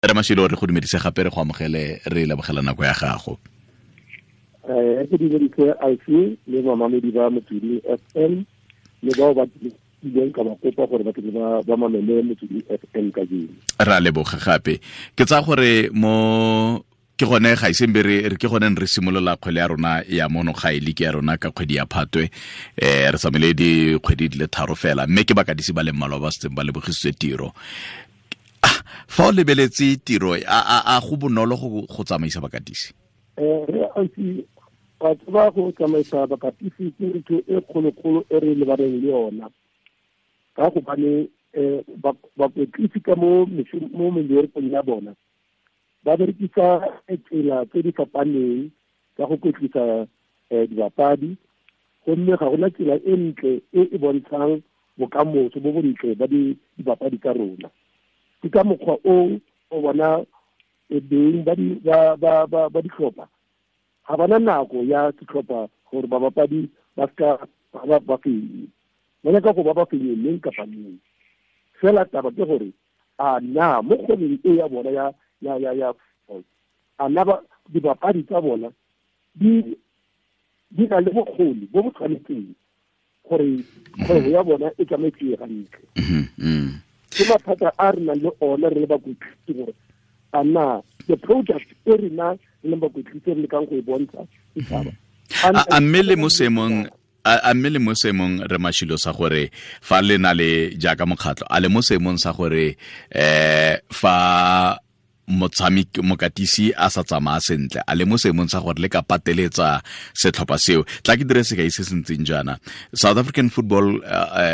Re Mashilo, re go dumedise gape, re go amogele, re lebogela nako ya gago. Ke dumedise Alfi le mamamedi ba Motsweding FM le bao ba ileng ka ba kopa gore ba tle ba mamele Motsweding FM kajeno. Ra leboga gape. Ke tsaya gore mo ke gone ga iseng be re ke gone re simolola kgwele ya rona ya mono ga e leke ya rona ka kgwedi ya Phatwe, re tsamaile dikgwedi di le 3 fela, mme ke bakadisi ba le mmalwa ba setseng ba lebogisitswe tiro. Fa o lebeletse tiro, a go bonolo go tsamaisa bakatisi? Re ausi, wa tseba go tsamaisa bakatisi ke ntho e kgolokgolo e re lebaneng le yona, ka gobane bakwetlisi ka mo meberekong ya bona ba berekisa tsela tse di fapaneng ka go kwetlisa dibapadi, gomme ga gona tsela e ntle e e bontshang bokamoso bo bontle ba dibapadi tsa rona. Ke ka mokgwa o o bona beng ba ditlhopha ga bana nako ya setlhopha gore babapadi ba seka ba fenye, ba nyaka go ba fenye neng kapa neng. Fela taba ke gore a na mo kgwebong e ya bona ya a na ba dibapadi tsa bona di na le bokgoni bo bo tshwanetseng gore kgwebo ya bona e tsamaetse gantle. Ke mathata a re nang le ona re le bakwetlisi gore a na the project e rena re leng bakwetlisi re lekang go e bontsha setšhaba. A mme le mo seemong, a mme le mo seemong re Mashilo sa gore fa le na le jaaka mokgatlho, a le mo seemong sa gore fa motshameki mokatisi a sa tsamaya sentle, a le mo seemong sa gore le ka pateletsa setlhopha seo? Tla ke dire sekai se se ntseng jaana. South African Football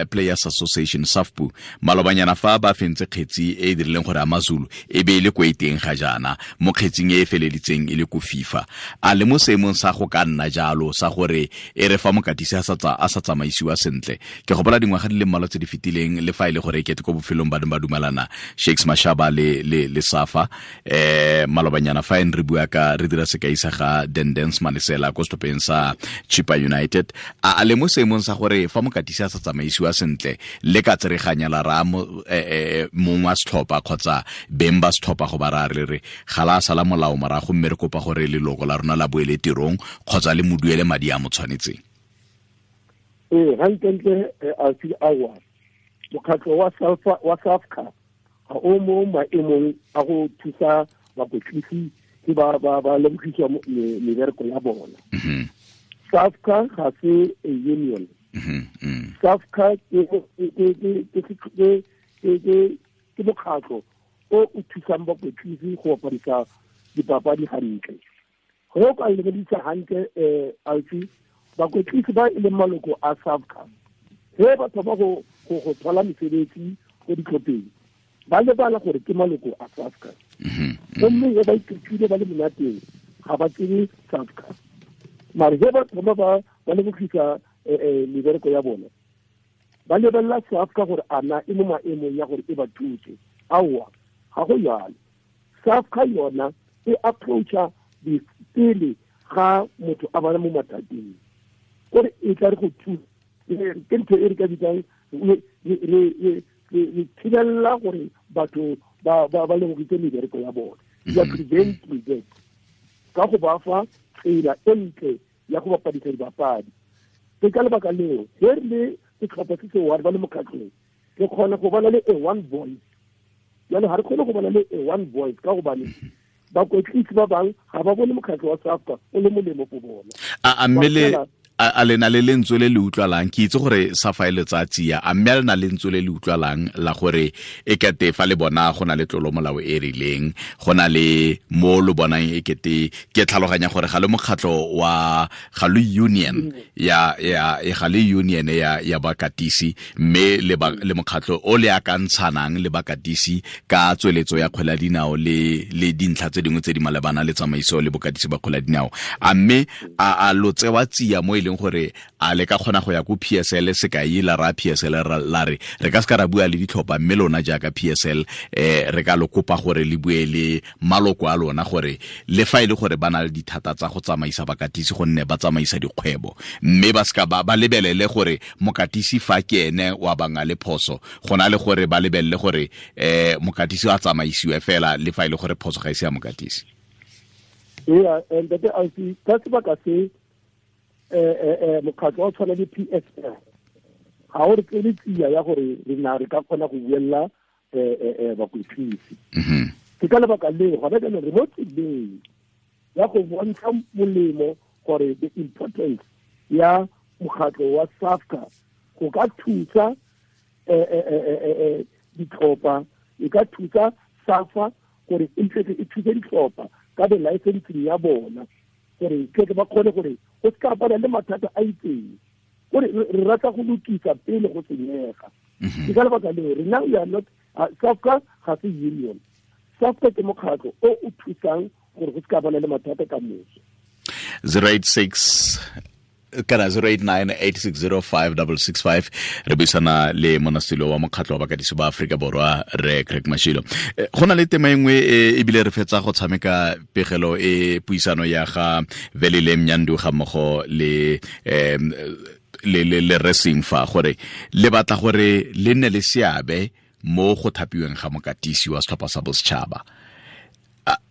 Players Association, SAFPU, malobanyana fa ba fentse kgetsi e e dirileng gore AmaZulu e be e le ko e teng ga jaana, mo kgetsing e e feleditseng e le ko FIFA. A le mo seemong sa go ka nna jalo sa gore e re fa mokatisi a sa tsamaisiwa sentle? Ke gopola dingwaga di le mmalwa tse di fetileng, le fa e le gore e kete ko bofelong ba ne ba dumelana Shakes Mashaba le SAFA, malobanyana fa re bua ka re dira sekai sa ga Dendens Malesela ko setlhopheng sa Chippa United. A le mo seemong sa gore fa mokatisi a sa tsamaisiwa sentle le ka tsereganya la ra mongwe wa setlhopha kgotsa beng ba setlhopha go ba ra re re ga la sala molao morago, mme re kopa gore leloko la rona la boele tirong kgotsa le mo duele madi a mo tshwanetseng? Ee, gantlentle Alfi, aowa, mokgatlho wa SAFCA ga o mo maemong a go thusa bakwetlisi ke ba lebogiswa mebereko ya bona. SAFCA ga se a union. SAFCA ke mokgatlho o o thusang bakwetlisi go bapadisa dipapadi hantle. Go ka lebedisa hantle Alfi, bakwetlisi ba e leng maloko a SAFCA ge ba thoma go thola mesebetsi ko ditlhopheng, ba lebala gore ke maloko a SAFCA. Gomme ge ba iketlile ba le monateng ga ba tsebe SAFCA, mare ge ba thoma ba lebogisa mebereko ya bona, ba lebelela SAFCA gore a na e mo maemong ya gore e ba thuse. Aowa, ga go jalo. SAFCA yona e approacha pele ga motho a bana mo mathateng, gore e tla re go thusa. Ke ntho e re ka bitsang re thibella gore batho ba lebogitse mebereko ya bona. Ya preventing that ka go ba fa tsela e ntle ya go bapadisa dibapadi. Ke ka lebaka leo ge re le setlhopha se se one ba le mokgatlhong, re kgona go bona le a one voice. Jalo ga re kgone go bona le a one voice ka gobane bakwetlisi ba bangwe ga ba bone mokgatlho wa SAFCA o le molemo go bona. A mme le a lena le lentswe le le utlwalang? Ke itse gore SAFA e letsatsi ya, a mme a lena lentswe le le utlwalang la gore e kete fa le bona go na le tlolo molao e rileng, go na le mo lo bonang e kete, ke tlhaloganya gore ga le mokgatlho wa ga le union ya ga le union ya bakatisi, mme le mokgatlho o le akantshanang le bakatisi ka tsweletso ya kgwele ya dinao le dintlha tse dingwe tse di malebana le tsamaiso le bokatisi ba kgwele ya dinao. A mme a lo tsewa tsia mo e leng gore a le ka kgona go ya ko PSL sekai la ra PSL la re re ka se ka ra bua le ditlhopha, mme lona jaaka PSL re ka lo kopa gore le bue le maloko a lona gore le fa e le gore ba na le dithata tsa go tsamaisa bakatisi gonne ba tsamaisa dikgwebo, mme ba seka ba lebelele gore mokatisi fa ke ene wa banga le phoso, go na le gore ba lebelele gore mokatisi a tsamaisiwe fela le fa e le gore phoso ga e se ya mokatisi. Ee, ntate Ausi, ka sebaka se mokgatlho wa tshwana le PSL ga o re tsele tsia ya gore re na re ka kgona go buella bakwetlisi. Ke ka lebaka leo gona jaanong re mo tseleng ya go bontsha molemo gore the importance ya mokgatlho wa SAFCA go ka thusa ditlhopha, e ka thusa SAFA gore e thuse ditlhopha ka the licensing ya bona, gore ke ba kgone gore go se ka bana le mathata a itseng, gore re rata go lokisa pele go senyega. Ke ka lebaka leo rena we are not SAFCA ga se union. SAFCA ke mokgatlho o o thusang gore go se ka bana le mathata ka moso. 086 kana 089 860 5665. Re buisana le monasilo wa mokgatlho wa bakatisi ba Aforika Borwa, re Craig Mashilo. Go na le tema e nngwe ebile re fetsa go tshameka pegelo e puisano ya ga Velile Mnyandu ga mmogo le le racing fa gore le batla gore le nne le seabe mo go thapiweng ga mokatisi wa setlhopha sa bosetšhaba.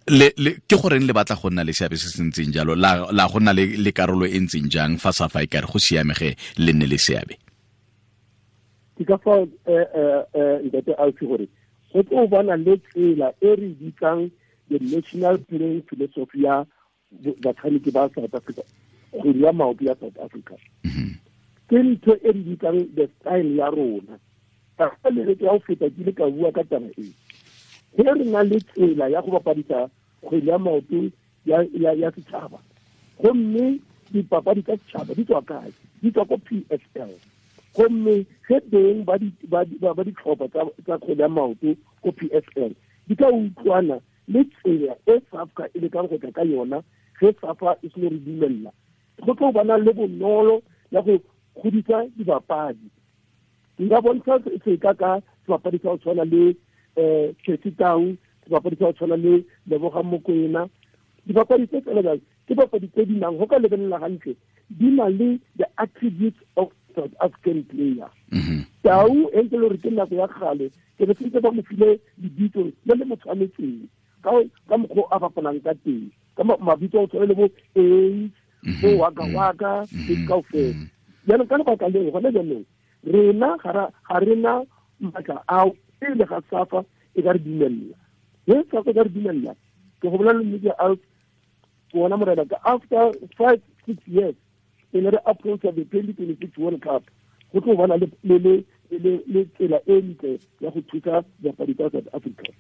Le ke goreng le batla go nna le seabe se se ntseng jalo, la go nna le karolo e ntseng jang fa sa fa e kare go siamege le nne le seabe? Ke ka fa ntate Ausi gore go tlo bona le tsela e re bitsang the national playing philosophy ya batshameki ba South Africa, kgwele ya maoto ya South Africa. Ke ntho e re bitsang the style ya rona. Ka le ya go feta ke ile ka bua ka taba e, ge re na le tsela ya go bapadisa kgwele ya maoto ya setšhaba, gomme dipapadi tsa setšhaba di tswa kae? Di tswa ko PSL. Gomme ge beng ba ditlhopha tsa kgwele ya maoto ko PSL di ka utlwana le tsela e SAFCA e lekang go tla ka yona, ge SAFA e seno re dumella, go tlo bana le bonolo ya go godisa dibapadi. Nka bontsha seka ka sebapadi sa go tshwana le Percy Tau, sebapadi sa go tshwana le Lebogang Mokoena. Dibapadi tse tsela jang ke bapadi tse di nang go ka lebelela gantle, di na le the attributes of South African player. Tau e ntse le gore ke nako ya kgale ke be sentse ba mo file lebitso le le mo tshwanetseng ka mokgwa a bapalang ka teng, ka mabitso a go tshwana le bo Ace, bo Waka Waka le kaofela. Jaanong ka lebaka leo gone jaanong rena ga rena maatla ao pele ga SAFA e ka re dumella. Ge SAFA e ka re dumella, ke go bolela nnete ya bona morena, ka after 5-6 years pele re approach the 2026 World Cup, go tlo bona le tsela e ntle ya go thusa dipapadi tsa South Africa.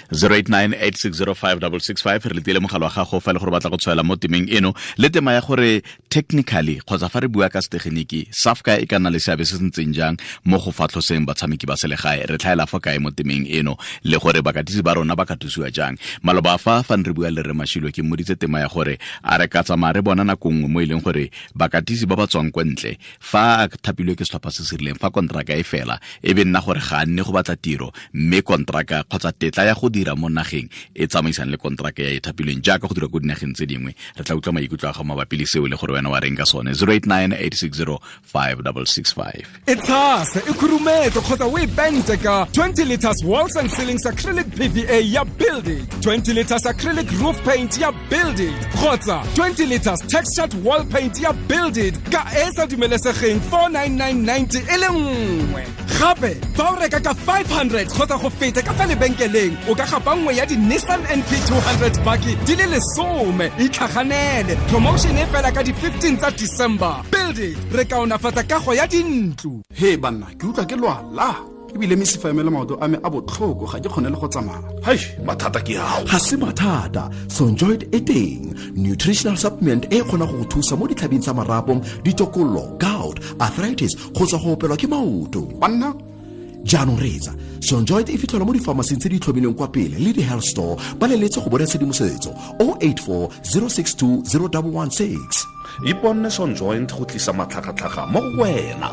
089 860 5665. Re letile mogala wa gago fa le gore batla go tshwaela mo temeng eno le tema ya gore technically kgotsa fa re bua ka setegeniki, SAFCA e ka nna le seabe se se ntseng jang mo go fatlhoseng batshameki ba selegae. Re tlhaela fa kae mo temeng eno le gore bakatisi ba rona ba ka thusiwa jang? Maloba fa ne re bua le re Mashilo, ke mmoditse tema ya gore a re ka tsamaya re bona nako nngwe mo e leng gore bakatisi ba ba tswang kwa ntle, fa a thapilwe ke setlhopha se se rileng, fa kontraka e fela e be nna gore ga a nne go batla tiro, mme kontraka kgotsa tetla ya go dira mo nageng e tsamaisang le kontraka ya e thapilweng jaaka go dira ko dinageng tse dingwe. Re tla utlwa maikutlo a gago mabapi le seo le gore wena wa reng ka sone. 089 860 5665. E tshase, e khurumetse kgotsa o e pente ka 20 liters walls and ceilings acrylic PVA ya Build It, 20 liters acrylic roof paint ya Build It kgotsa 20 liters textured wall paint ya Build It ka e sa dumelesegeng 49990 e le nngwe. Gape fa o reka ka 500 kgotsa go feta ka fa lebenkeleng, o ka gapa nngwe ya di-Nissan NP 200 bakkie di le 10. Itlhaganele, promotion e fela ka di-15 tsa December. Build It, re kaonafatsa kago ya dintlo. He banna, ke utlwa ke lwala ebile mesifa ya me le maoto a me a botlhoko, ga ke kgone le go tsamaya. Hei, mathata ke ao. Ga se mathata, Sonjoid e teng, nutritional supplement e kgona go go thusa mo ditlhabing tsa marapo, ditokololo, gout, arthritis kgotsa go opelwa ke maoto. Banna. Jaanong reetsa, Sonjoint e fitlhelwa mo difamasing tse di tlhomilweng kwa pele le di-health store. Ba leletse go bona tshedimosetso 084 062 0116. Iponne Sonjoint go tlisa matlhagatlhaga mo go wena.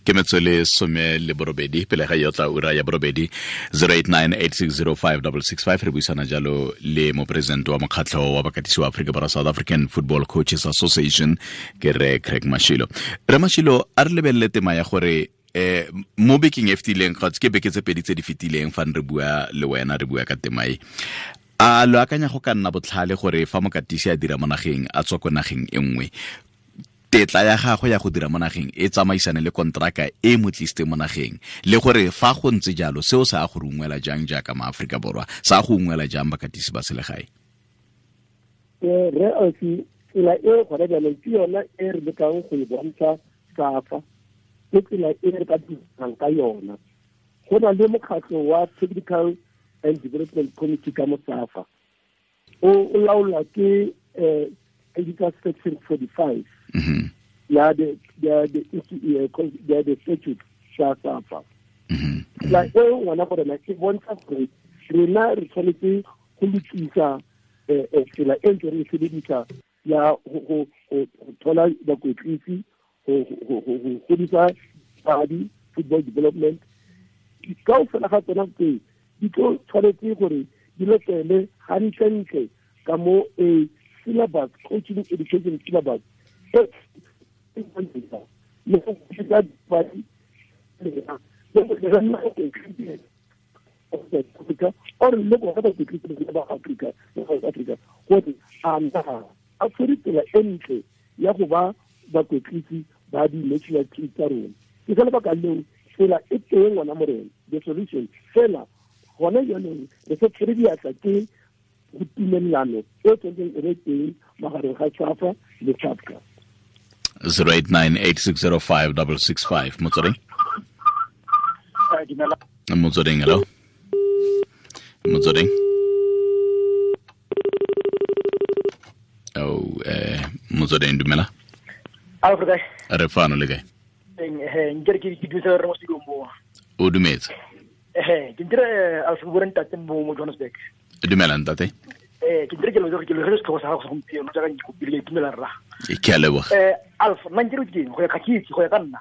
Ke metswele 18 pele ga yotla ura ya 8 0898605665. Re buisana jalo le mopresidente wa mokgatlho wa bakatisi wa Afrika Borwa, South African Football Coaches Association, ke re Craig Mashilo. Re Mashilo, a re lebelele tema ya gore mo bekeng e fetileng, kgotsa ke beke tse pedi tse di fetileng, fa re bua le wena re bua ka tema e, a lo akanya go ka nna botlhale gore fa mokatisi a dira mo nageng a tswa ko nageng e nngwe, tetla ya gagwe ya go dira mo nageng e tsamaisane le kontraka e mo tlisitse mo nageng, le gore fa go ntse jalo seo sa go rungwela jang jaaka maAforika Borwa, sa go ungwela jang bakatisi ba selegae? Re ausi, tsela e gona jaanong ke yona e re lekang go e bontsha SAFA, ke tsela e re ka dirang ka yona. Go na le mokgatlho wa Technical and Development Committee ka mo SAFA, o laolwa ke Editor Section 45 ya the statute sa SAFA. Tsela e ngwana gore na ke bontsha gore rena re tshwanetse go lokisa tsela e ntse re e sebedisa ya go thola bakwetlisi, go godisa padi, football development. Kaofela ga tsona tse di tlo tshwanetse gore di latele gantlentle ka mo a syllabus, coaching education syllabus le go godisa padi or le bona bakwetlisi ba Afrika, South Africa, gore a na a tshwere tsela e ntle ya go ba bakwetlisi ba di-national team tsa rona. Ke ka lebaka leo tsela e teng ngwana morena, the solution fela gona jaanong re sa tshwere diatla ke go tumelelano e tshwanetseng e be teng magareng ga SAFA le SAFCA. 0898605665. Motsweding? Motsweding, hello. Motsweding. Oh, Motsweding, dumela. Re fano le kae? Nkere ke dumetse re mo studio mo. O dumetse? Ke ntire a se bua ntate mo Johannesburg. Dumela ntate. Ke ntire ke lo ke le re setlhogo sa gago gompieno jaaka ke kopile ke itumela rra. Ke a leboga. Alf, nna nkere ke go ya ka ke itse go ya ka nna.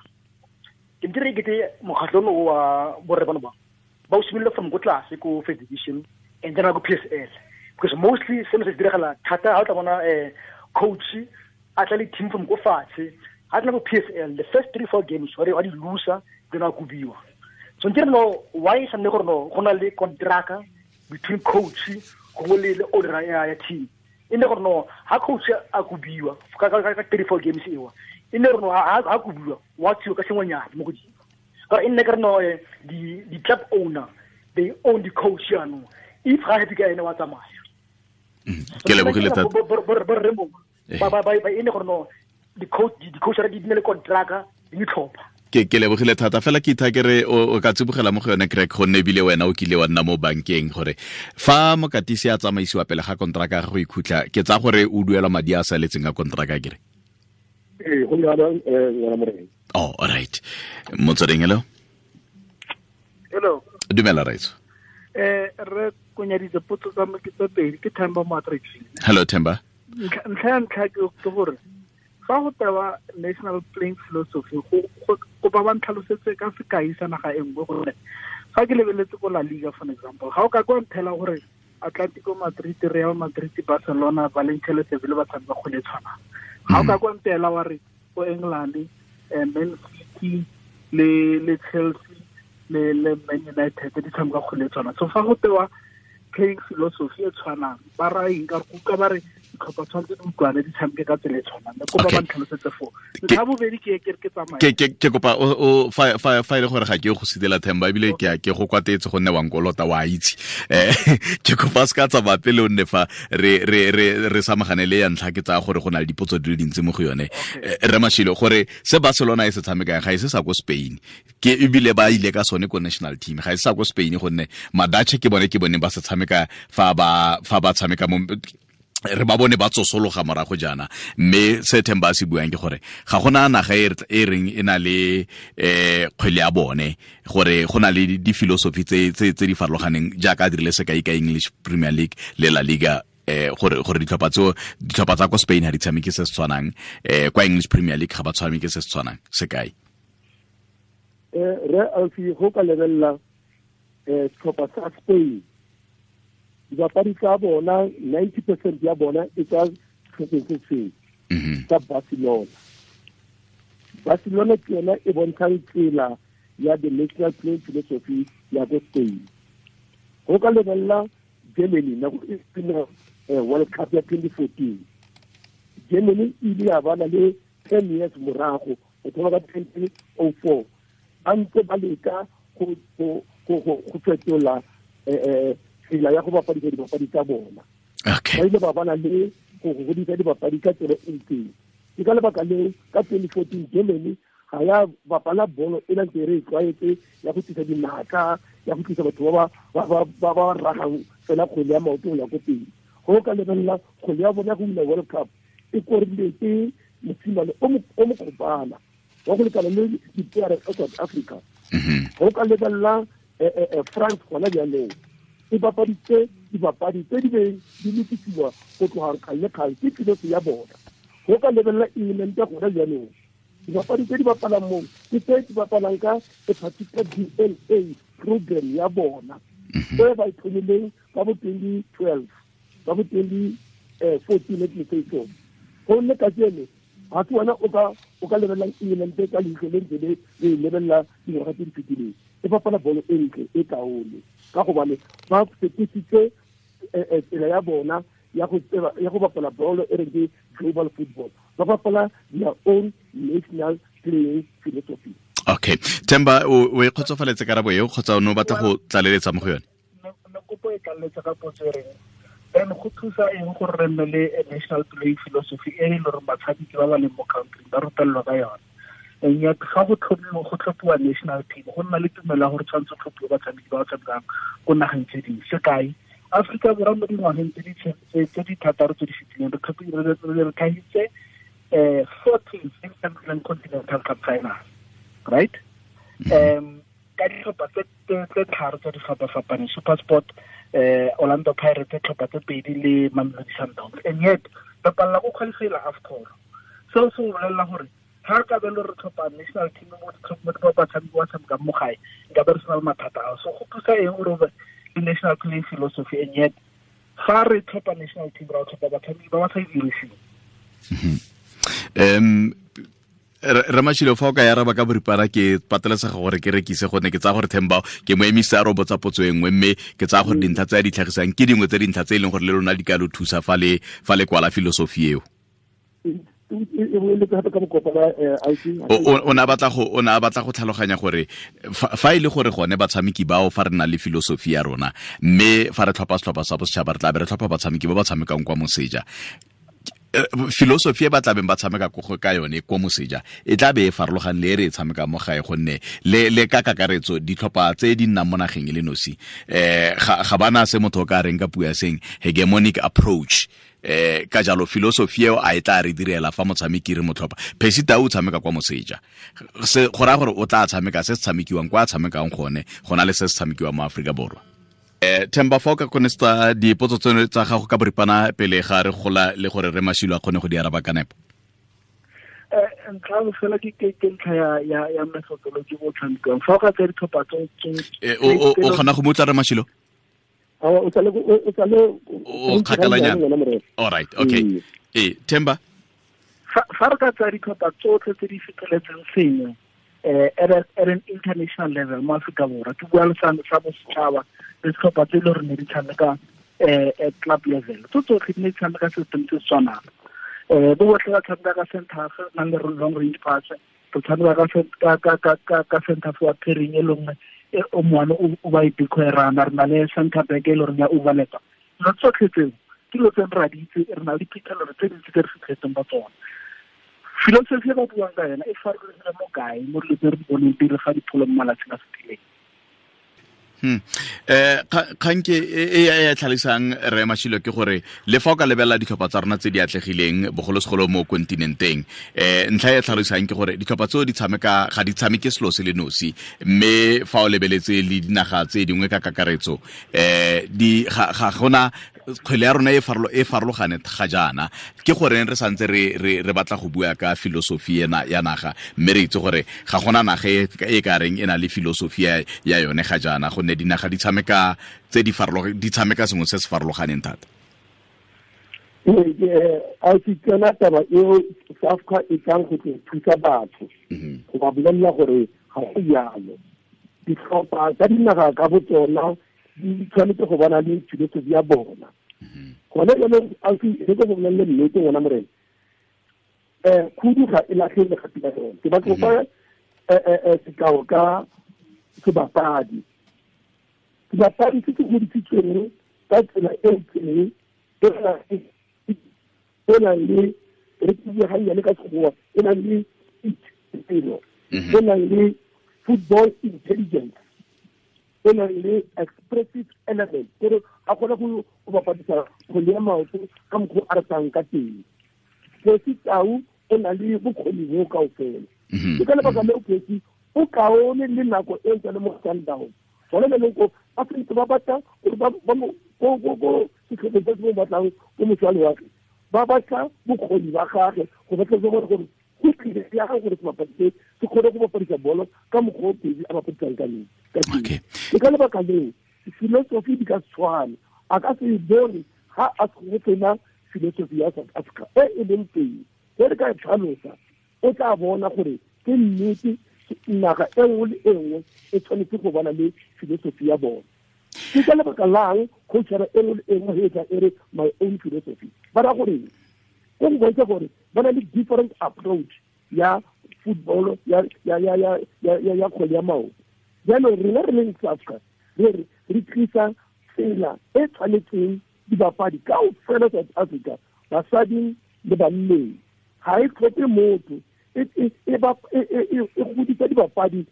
Ke ntire ke te mokgatlho ono wa borre bano ba o simolola from go tlase ko first division and then go PSL, because mostly seno se diragala thata ha o tla bona coach a tla le team from go fatshe, ha tla go PSL the first 3-4 games wa di loser, then a kubiwa. So nkere no why sa nne gore no go na le contract between coach go le le owner ya team, e ne gore no ha coach a kubiwa ka 3-4 games ewa, e ne gore no ha kubiwa wa tsio ka sengwenyana mo godimo, ka e nne ke re no di club owner they own the coach jaanong, if ga happy ka ene wa tsamaya. Ke lebogile thata. Ba e ne gore no di coach di ne le contract di tlhopha. Ke lebogile thata fela ke itha ke re o ka tsibogela mo go yone Craig, gonne ebile wena o kile wa nna mo bankeng, gore fa mokatisi a tsamaisiwa pele ga kontraka ya go ikhutla, ke tsa gore o duela madi a saletseng a kontraka kere. Ee, go jalo ngwana morena. Oh, all right. Motsweding, hello. Hello. Dumela raitso. Re konyaditse potso tsa me ke tse pedi, ke Themba mo Attractive. Hello Themba. Ntlha ya ntlha ke gore fa go tewa national playing philosophy, go ba ba ntlhalosetse ka sekai sa naga e nngwe, gore fa ke lebeletse ko La Liga for example, ga o ka kwa nthela gore Atletico Madrid, Real Madrid, Barcelona, Valencia le Sevilla ba tshameka kgwele e tshwanang. Ga o ka kwa ntela wa re ko England, Man City le Chelsea le Man United di tshameka kgwele e tshwanang. So fa go tewa playing philosophy e tshwanang, ba raya eng? Ka re kuka ba re ditlhopha tshwanetse di utlwane di tshameke ka tsela e tshwanang. Kopa ba ntlhalosetse foo. Ntlha bobedi ke ke tsamaya. Ke kopa o fa e le gore ga ke go sidela Themba, ebile ke go kwatetse gonne wa nkolota wa itse. Ke kopa se ka tsamaya pele o nne fa re samagane le ya ntlha, ke tsaya gore go na le dipotso di le dintsi mo go yone. Re Mashilo, gore se Barcelona e se tshamekang ga e se sa ko Spain, ke ebile ba ile ka sone ko national team, ga e se sa ko Spain, gonne Madache ke bone ba se tshameka fa ba tshameka mo Re ba bone ba tsosologa morago jaana, mme se Themba a se buang ke gore ga gona naga e reng e na le kgwele ya bone, gore go na le di-philosophy tse di farologaneng, jaaka a dirile sekai ka English Premier League le La Liga, gore ditlhopha tsa kwa Spain ha di tshameke se se tshwanang, kwa English Premier League ga ba tshameke se se tshwanang. Sekai Re Alfi, go ka lebelela setlhopha sa Spain, dibapadi tsa bona 90% ya bona e tswa setlhopheng se sengwe sa Barcelona. Barcelona ke yona e bontshang tsela ya the national playing philosophy ya ko Spain. Go ka lebelela Germany nako e sena World Cup ya 2014, Germany e ile ya bana le 10 years morago, go thoma ka 2004, ba ntse ba leka go fetola tsela ya go bapadisa dibapadi tsa bona. Ba ile ba bana le go godisa dibapadi ka tsela e itseng. Ke ka lebaka leo ka 2014 Germany ga ya bapala bolo e leng re e tlwaetse ya go tlisa dinaka, ya go tlisa batho ba ba ragang fela kgwele ya maoto go ya ko pele. Go ka lebelela kgwele ya bona go wina World Cup e korile ke mosimane o mokgopana wa go lekana le dipeare tsa South Africa. Go ka lebelela France gona jaanong e bapaditse dibapadi tse di beng di lokisiwa go tloga kgale le kgale ke philosophy ya bona. Go ka lebelela England gona jaanong, dibapadi tse di bapalang moo ke tse di bapalang ka a particular DNA program ya bona e ba e thomileng ka bo 2012, ka bo 2014, let me say so. Gonne kajeno ga se wena o ka lebelelang England ka leitlho le ntse le e lebelela dingwaga tse di fetileng. E bapala bolo e ntle e kaone ka gobane ba fetositse tsela ya bona ya go bapala bolo e reng ke global football. Ba bapala their own national playing philosophy. Okay, Themba, o e kgotsofaletse karabo eo kgotsa o ne o batla go tlaleletsa mo go yone? Ne kopo e tlaleletsa ka potso e reng then go thusa eng gore re nne le national playing philosophy e e le gore batshameki ba ba leng mo country ba rutelelwa ka yone? And yet ga go tlhophiwa national team, go nna le tumelo ya gore tshwanetse tlhophiwe batshameki ba ba tshamekang ko nageng tse dingwe. Sekai, Aforika Borwa mo dingwageng tse di thataro tse di fetileng re tlhagitse 4 teams tse di tshamekileng Continental Cup final, right? Ka ditlhopha tse tharo tse di fapa-fapaneng, SuperSport, Orlando Pirates, tlhopha tse pedi le Mamelodi Sundowns, and yet re palela go qualify-ela AFCON. Seo se bolelela gore ga re ka be le re tlhopha national team mo batshameki ba tshamekang mo gae, nka be re sena le mathata ao. So go thusa eng gore o be le national playing philosophy, and yet ga re tlhopha national team ra tlhopha batshameki ba ba sa e diriseng? Ramashilo, fa o ka araba ka boripana ke patelesega gore ke rekise, gonne ke tsaya gore Themba ke mo emisa a robotsa potso e nngwe, mme ke tsaya gore dintlha tse a di tlhagisang ke dingwe tse dintlha tse e leng gore le lona di ka lo thusa fa le kwala philosophy eo. O ne a batla go tlhaloganya gore fa e le gore gone batshameki bao fa re na le philosophy ya rona, mme fa re tlhopha setlhopha sa bosetšhaba re tla be re tlhopha batshameki ba ba tshamekang kwa moseja, philosophy e ba tlabeng ba tshameka ka yone kwa moseja e tla be e farologane le e re e tshamekang mo gae, gonne le ka kakaretso ditlhopha tse di nnang mo nageng e le nosi ga bana se motho o ka reng ka puo ya seng hegemonic approach. Ka jalo philosophy eo a e tla re direla fa motshameki re motlhopha. Percy Tau o tshameka kwa moseja, se go raya gore o tla tshameka se se tshamekiwang kwa a tshamekang gone go na le se se tshamekiwang mo Aforika Borwa. Themba, fa o ka konesta dipotso tseno tsa gago ka boripana pele ga re gola le gore re Mashilo a kgone go di araba ka nepo. Ntlha fela ke ntlha ya methodology bo tshamekang. Fa o ka tsaya ditlhopha tse o kgona go mo utlwa re Mashilo? O kgakalanyana. All right, okay. Themba, fa re ka tsaya ditlhopha tsotlhe tse di feteletseng sengwe at an international level mo Aforika Borwa, ke bua le sa bosetšhaba le setlhopha tse e le gore ne di tshameka at club level, tso tsotlhe di ne di tshameka system se se tshwanang. Bo botlhe ba tshameka ka center half, nang le long range pass, re tshameka ka center forward pairing e le nngwe o moane o ba e decoy-rana, re na le center back e le goreng ya overlap. Dilo tsotlhe tseo ke dilo tse re a di itse, re na le diphitlhelelo tse dintsi tse re fitlhetseng ba tsona. Philosophy e ba buang ka yona e farologile mo kae mo dilo tse re di boneng pele ga dipholo mo malatsing a fetileng? Kgang ke e tlhalosang re Mashilo ke gore le fa o ka lebelela ditlhopha tsa rona tse di atlegileng bogolosegolo mo kontinenteng, ntlha e tlhalosang ke gore ditlhopha tseo di tshameka ga di tshameke selo se le nosi, mme fa o lebeletse le dinaga tse dingwe ka kakaretso, di ga gona kgwele ya rona e farologane ga jaana. Ke goreng re santse re batla go bua ka filosofi ena ya naga, mme re itse gore ga gona naga e ka reng e na le filosofi ya yone ga jaana, gonne dinaga di tshameka tse di farologane, di tshameka sengwe se se farologaneng thata? A se tsena taba eo SAFCA e tlang go tlo thusa batho go ba bolelela gore ga go jalo. Ditlhopha tsa dinaga ka bo tsona di tshwanetse go bona le filosofi ya bona. Gone jaanong re ko go bolelele nnete, ngwana morena, khudu ga e latlhe legapi la yone. Ke batla go fa sekao ka sebapadi. Sebapadi se se godisitsweng ka tsela e itseng, e nang le, re ke gannyane ka Sekgowa, e nang le pelo, e nang le football intelligence, e nang le expressive element, kore a kgone go bapadisa kgwele ya maoto ka mokgwa a ratang ka teng. Percy Tau o na le bokgoni bo kao fela. Ke ka lebaka leo Percy o kaone le nako e ntse le mo Sundowns. Gone jaanong ko ba sentse ba batla gore ba mo ko setlhopheng se se mo batlang ko moše wa lewatle, ba batla bokgoni ba gage go batla gore go tlile ya gore sebapadi se se kgone go bapadisa bolo ka mokgwa o Percy a bapadisang ka teng. Ke ka lebaka leo filosofi di ka tshwana. A ka se bone ga a go tsena filosofi ya South Africa e e leng teng. Ge re ka e tlhalosa, o tla bona gore ke nnete naga e nngwe le e nngwe e tshwanetse go bona le filosofi ya bona. Ke ka lebaka lang coachara e nngwe le e nngwe e tla e re my own philosophy? Ba ra gore go go bontsha gore ba na le different approach ya football, ya ya ya ya ya ya kgwele ya maoto. Jaanong rena re leng South Africa re re tlisa tsela e tshwanetseng dibapadi kaofela South Africa, basading le banneng. Ga e tlhope motho, e godisa dibapadi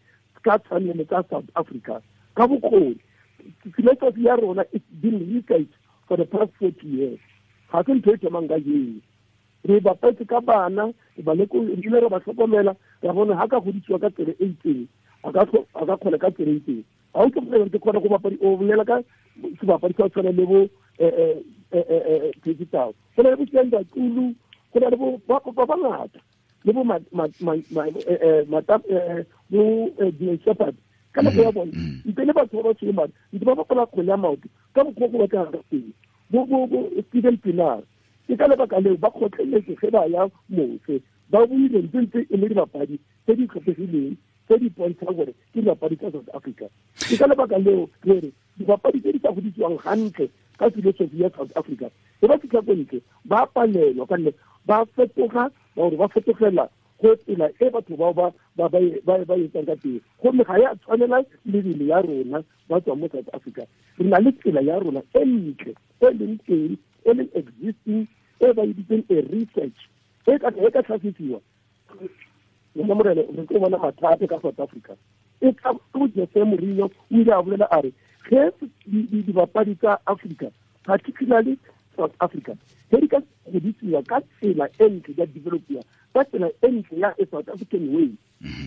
ka tshwanelo tsa South Africa ka bokgoni. Philosophy ya rona it's been researched for the past 40 years. Ga se ntho e thomang ka jeno. Re bapetse ka bana, re ile re ba tlhokomela, ra bona ga ka godisiwa ka tsela e itseng, a ka kgona ka tsela e itseng. Ga o tlhokomela ke kgona go bapadi, o bolela ka sebapadi sa tshwana le bo Percy Tau, go na le bo Siyanda Xulu, go na le bo ba bangata, le bo bo Dillon Sheppard. Ka nako ya bone ntle le batho ba ba tshwere madi ntse ba bapala kgwele ya maoto ka mokgwa go batlegang ka teng, bo Steven Pienaar. Ke ka lebaka leo ba kgotleletse ge ba ya mose, ba buile ntse ntse e le dibapadi tse di tlhophegileng tse di bontshang gore ke dibapadi tsa South Africa. Ke ka lebaka leo re re dibapadi tse di sa godisiwang gantle ka filosofi ya South Africa, e ba fitlha ko ntle ba palelwa, ka nne ba fetoga gore ba fetogela go tsela e batho bao ba ba etsang ka teng, gomme ga ya tshwanela mebele ya rona ba tswang mo South Africa. Re na le tsela ya rona e ntle e leng teng, e leng existing, e ba e bitseng a research e ka tlhasisiwa. Ngwana morena, re tlo bona mathata ka South Africa. E ka go Jose Mourinho o ile a bolela a re ge dibapadi tsa Africa, particularly South Africa, ge di ka godisiwa ka tsela e ntle, ya developiwa ka tsela e ntle ya South African way,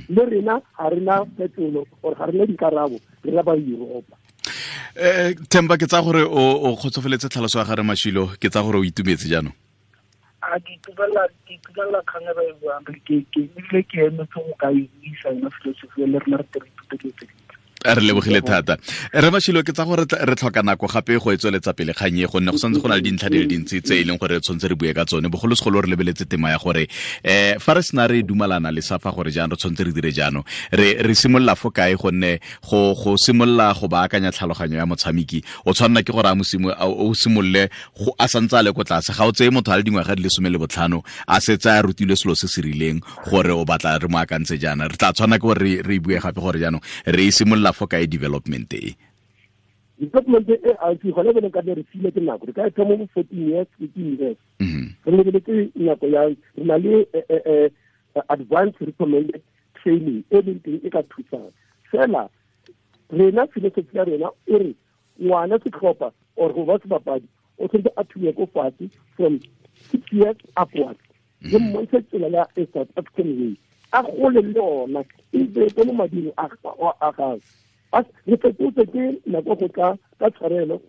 le rena ga rena phetolo or ga rena dikarabo, rena ba Europa. Themba, ke tsa gore o kgotsofeletse tlhaloso ya gare Mashilo, ke tsa gore o itumetse jaanong? A ke itumelela kgang e ba e buang, ke ebile ke emetse go ka e buisa yona filosofi le rena re tle re ithute dilo tse dintsi. Re lebogile thata re Mashilo. Ke tsa gore re tlhoka nako gape go e tsweletsa pele kgang e, gonne go santse go na le dintlha di le dintsi tse e leng gore re tshwanetse re bue ka tsone, bogolosegolo re lebeletse tema ya gore fa re sena re dumalana le SAFA gore jaanong re tshwanetse re dire jaanong, re simolola fo kae, gonne go simolola go baakanya tlhaloganyo ya motshameki o tshwanela ke gore o simolole a santse a le ko tlase. Ga o tseye motho a le dingwaga di le 15 a setse a rutilwe selo se se rileng gore o batla re mo akantse jaana. Re tla tshwana ke gore re bue gape gore jaanong re e simolola fo kae development e. Development e a ke gone bone ka re file ke nako, re ka e thoma mo 14 years, 15 years. Re lebeletse nako ya re na le advanced recommended training e leng teng e ka thusang fela. Rena philosophy ya rena e re ngwana setlhopha or go ba sebapadi o tshwanetse a thuye ko fatshe from 6 years upwards, le mmontshe tsela ya a South African way, a gole le yona e be mo mading a gagwe. Re fetotse ke nako go tla ka tshwarelo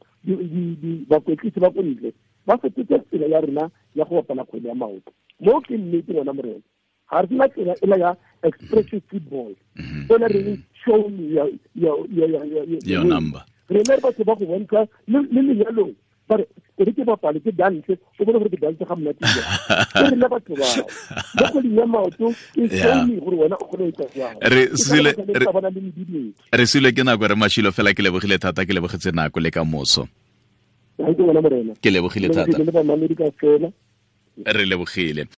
bakwetlisi ba ko ntle ba fetotse tsela ya rena ya go bapala kgwele ya maoto. Mo ke nnete ngwana morena, ga re sena tsela ela ya expressive football ela re show me your number. Rena re batho ba go bontsha le lenyalong ba re ke ke bapale ke dance, o bone gore ke dance ga monate ke rena batho bao mo kgweding ya maoto ke show me gore wena o kgone go etsa jang. Re sile ke nako re Mashilo, fela ke lebogile thata, ke lebogetse nako le ka moso. Ke lebogile thata, re lebogile.